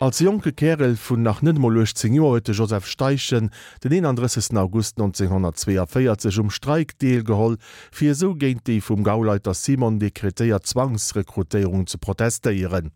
Als jonke Kärel vun nach net emol 18 Joer huet de Joseph Steichen den 31 August 1942 um Streik deelgeholl, fir esou géint déi vum Gauleiter Simon dekretéiert Zwangsrekrutéierung ze protestéieren.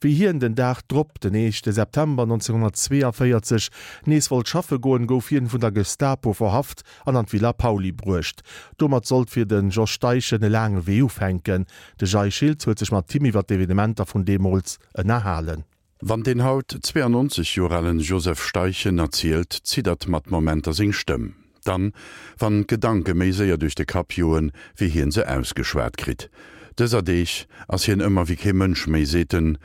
Wéi hien den Dag drop, den éischte September 1942, nees wollt schaffe goen, gouf hien vun der Gestapo verhaft an an d'Villa Pauly bruecht. Domat sollt fir de Jos Steichen e laange Wee ufänken. De Jay Schiltz huet sech mat him iwwer d'Evenementer vun deemools ënnerhalen. Wann den haut 92 Joer alen Joseph Steichen erzielt, ziddert mat Momenter seng Stëmm. Dann, wann d'Gedanke méi séier duerch de Kapp joen, wéi hien se ausgeschwat kritt. Dëser Deeg ass hien ëmmer wéi kee Mënsch méi, seet en.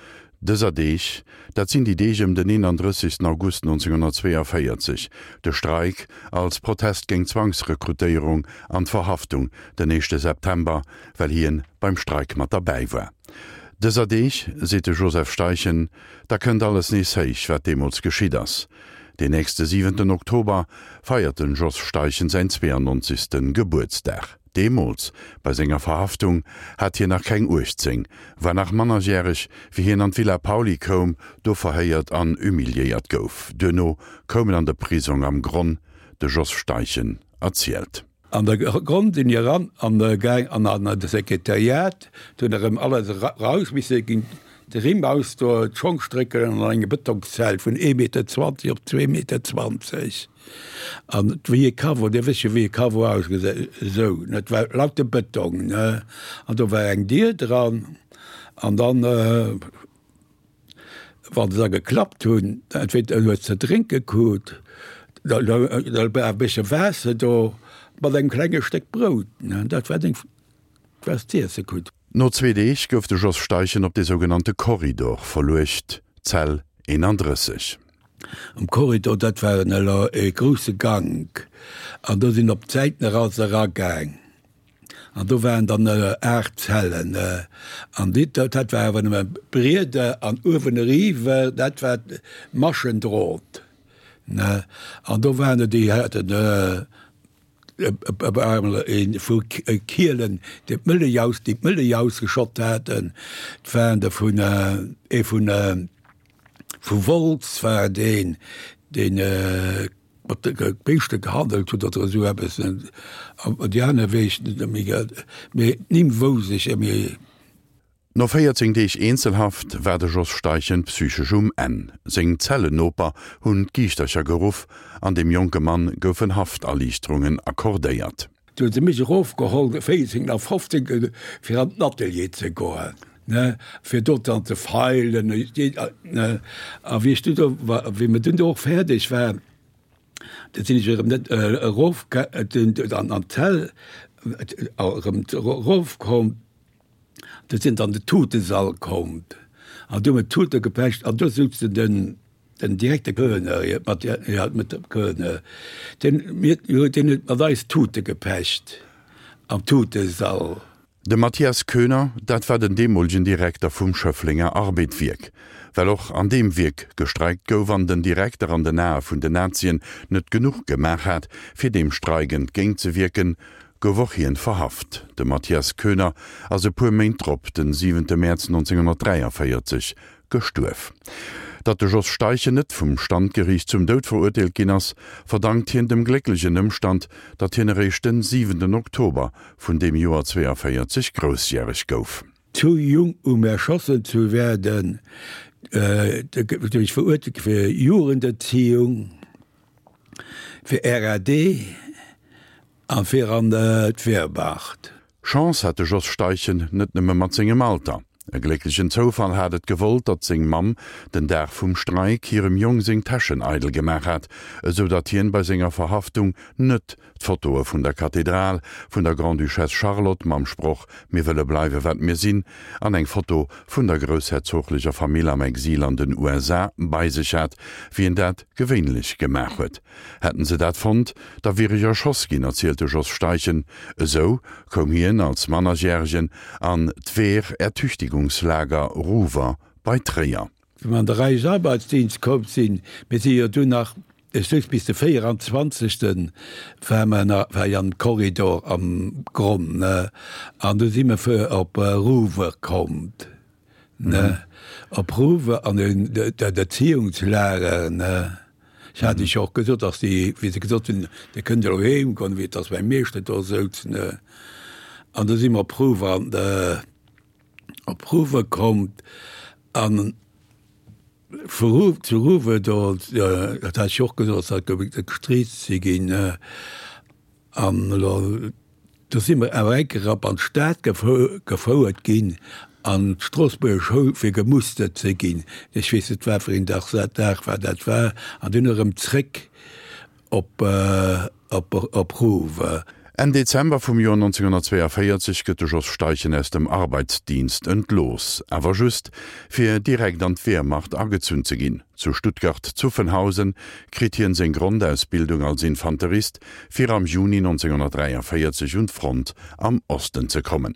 Dëser Deeg, dat sinn déi Deeg ëm den 31. August 1942, de Streik als Protest géint d'Zwangsrekrutéierung an d'Verhaftung den éischte September, well hien beim Streik mat derbäi war. Dëser Deeg, seet de Joseph Steichen, da kënnt alles nees héich, wat deemools geschitt ass. Deen nächste siwenten Oktober feiert den Jos Steichen säin 92. Gebuertsdag. Deemools, bei senger Verhaftung, hat hien nach keng 18, war nach mannerjäreg, wéi hien an d'Villa Pauly koum, do verhéiert an humiliéiert gouf. Duerno koum en an de Prisong am Gronn, de Jos Steichen erzielt. An der Gronn sinn mir eran an gaang an an de Sekretariat, do hunn erëm alles eraus misse ginn, de Rimm ausdoen, d'Schong strécken an eng Betongszell vun ee Meter 20 op zwee Meter 20 an wéi e Caveau, Dir wësst jo wéi e Caveau ausgesäit, esou, dat war lauter Betong, ne, an do war eng Dier dran an dann. Wann se da geklappt hunn, entweder hues ze drénke krut, da war e bëssche Waasser do mat engem klenge Stéck Brout, dat war deng, wat s z'iesse krut. No zwee Deeg gouf de Jos Steichen op de sougenannte Korridor verluecht, Zell 31. Am Korridor, dat war en elo e grousse Gank, an do sinn op d'Säiten eraus eragaang. An do waren dann 8 Zellen. An déi, dat war awer nëmme Brieder an uewen eriwwer, dat war Maschendrot, ne. An do waren der, déi haten ee vu Kielen, deen d'Mëllech aus, déi d'Mëllech ausgeschott haten. Et waren der vun, ee vun, vu Wolz war deen, deen mat de Béischte gehandelt huet oder esou eppes. An déi aner weess ech net méi, mee d'Nimm wouss ech méi. No 14 Deeg Eenzelhaft war de Jos Steichen psychesch um Enn. Seng Zellennoper hunn d'Giichtercher geruff an dem jonke Mann goufen Hafterliichterungen accordéiert. Du hu se mech erofgeholl, 14 a 15, fir an den Atelier ze goen, ne, fir do dann ze feilen, ne. A wéi ech du do war, wéi mer dunn do och fäerdeg war, da sinn ech erëm net erof, an d'Zell erëm erofkomm. Do sinn dann de Tutesall komm an do hu mer d'Tute gepecht an do souzen den den Direkter Koener, mat ja mat dem Koener, deen mir deen huet mat eis Tute gepecht am Tutesall. De Mathias Koener, dat war den deemolegen Direkter vum Schëfflenger Arbed-Wierk. Well och an deem Wierk gestreikt gouf an den Direkter an den Ae vun den Nazien net genuch gemaach hat, fir deem Streik entgéintzewierken, gouf och hien verhaft. De Mathias Koener ass e puer Méint drop, den siwente Mäerz 1943, gestuerf. Datt de Jos Steichen net vum Standgeriicht zum Doud verurteelt ginn ass, verdankt hien dem glécklechen Ëmstand, datt hien eréischt den siwenten Oktober vun deem Joer 42 groussjäreg gouf. Zu jung um erschossen zu werden, du ech verurteelt fir Jugenderziehung, fir RAD. A fir an d'Wehrmacht. Chance hat de Jos Steichen net nëmme mat sengem Alter. E glécklechen Zoufall hat et gewollt, datt seng Mamm den Dag vum Streik hirem Jong seng Täschen eidel gemaach hat, esou datt hien bei senger Verhaftung net d'Fotoe vun der Kathedral, vun der Grande-Duchesse Charlotte mam Sproch Mir wëlle bleiwe wat mir sinn an eng Foto vun der groussherzoglecher Famill am Exil an den USA bei sech hat, wéi en dat gewéinlech gemaach huet. Hätten se dat fonnt, da wier ech erschoss ginn, erzielt de Jos Steichen. Esou koum hien als Mannerjäregen an d'Wehrertüchtigungslager Ruwer bei Tréier. Wéi mer an de Reichsarbeitsdienst komm sinn, mir si jo dunn nach, ech souz bis de 24. war mer nach, war ech am Korridor am Gronn, ne, an du si mer fir op Ruwer komm. Ne, op Ruwe an dat Erziehungslager, ne. Ech hat iech jo och gesot, dass déi, wéi se gesot hunn, Dir kënnt elo heem goen, wéi et ass mäi Meeschter do souz, ne. An du si mer op Ruwe an op Ruwe komm an vu Ru zu Ruwe do, dat hat ech jo och gesot, dass dat gestreest si ginn, ne. An elo, do si mer awer eng Kéier erop an d'Stad gefouert ginn, an d'Stroossbuerger Schoul, fir gemustert ze ginn. Ech weess net, wat fir een Dag dat Dag war dat war. An dunn erëm zréck op, op Rouvre. Enn Dezember vum Joer 1942 gëtt de Jos Steichen aus dem Arbeitsdienst entlooss, awer just, fir direkt an d'Wehrmacht agezunn ze ginn. Zu Stuttgart-Zuffenhausen kritt hien seng Grondausbildung als Infanterist, fir am Juni 1943 un d'Front am Osten ze kommen.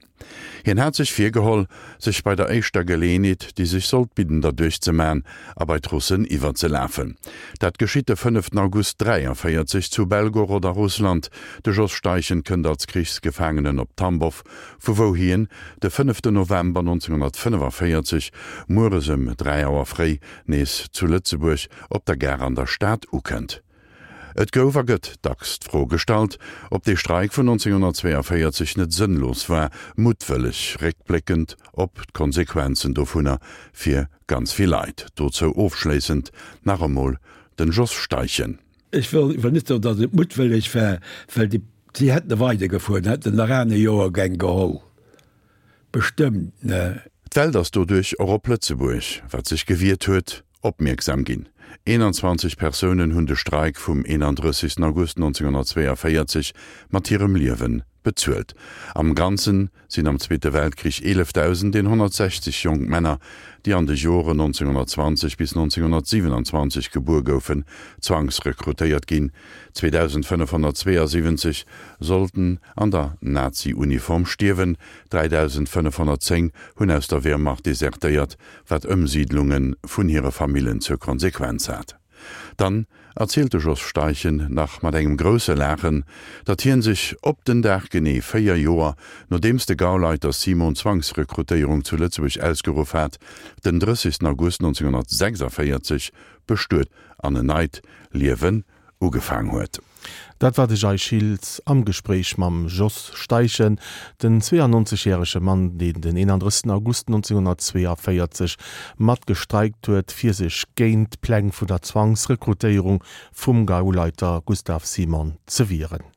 Hien hat sech virgeholl, sech bei der éischter Geleeënheet, déi sech sollt bidden, derduerch ze man a bei d'Russen iwwerzelafen. Dat geschitt de fënneften August 43 zu Belgorod a Russland. De Jos Steichen kënnt als Krichsgefaangenen op Tambow, vu wou hien de fënneften November 1945 mueres ëm 3 Auer fréi nees zu Lëtzebuerg op der Gare an der Stad ukënnt. Et gouf a gëtt dacks d'Fro gestallt, ob dee Streik vun 1942 net sënnlos war, muttwëlleg, réckbléckend op d'Konsequenzen dovunner fir ganz vill Leit. Dozou ofschléissend nach emol den Jos Steichen. Ech wëll net soen, datt et muttwëlleg war, well déi, si hätte weidergefuer, hätten nach aner Joergäng geholl, bestëmmt, ne? D'Welt ass doduerch och op Lëtzebuerg, wat sech gewiert huet, opmierksam ginn. 21 Persounen hunn de Streik vum 31 August 1942 mat hirem Liewe bezuelt. Am Ganze sinn am Zweete Weltkrich 11.160 jonk Männer, déi an de Joren 1920 bis 1927 gebuer goufen, zwangsrekrutéiert ginn. 2.572 sollten an der Nazi-Uniform stierwen, 3.510 hunn aus der Wehrmacht desertéiert, wat Ëmsiidlunge vun hire Famillen zur Konsequenz hat. Dann erzielt de Jos Steichen nach mat engem grousse Laachen, datt hien sech op den Dag genee 4 Joer, nodeems de Gauleiter Simon d'Zwangsrekrutéierung zu Lëtzebuerg ausgeruff hat, den 30 August 1946 bestuet an en neit Liewen ugefaang huet. Dat war de Jay Schiltz am Gespréich mam Jos Steichen, den 92 järege Mann, deen den 31 August 1942 mat gestreikt huet, fir sech géint d'Pläng vun der Zwangsrekrutéierung vum Gauleiter Gustav Simon ze wieren.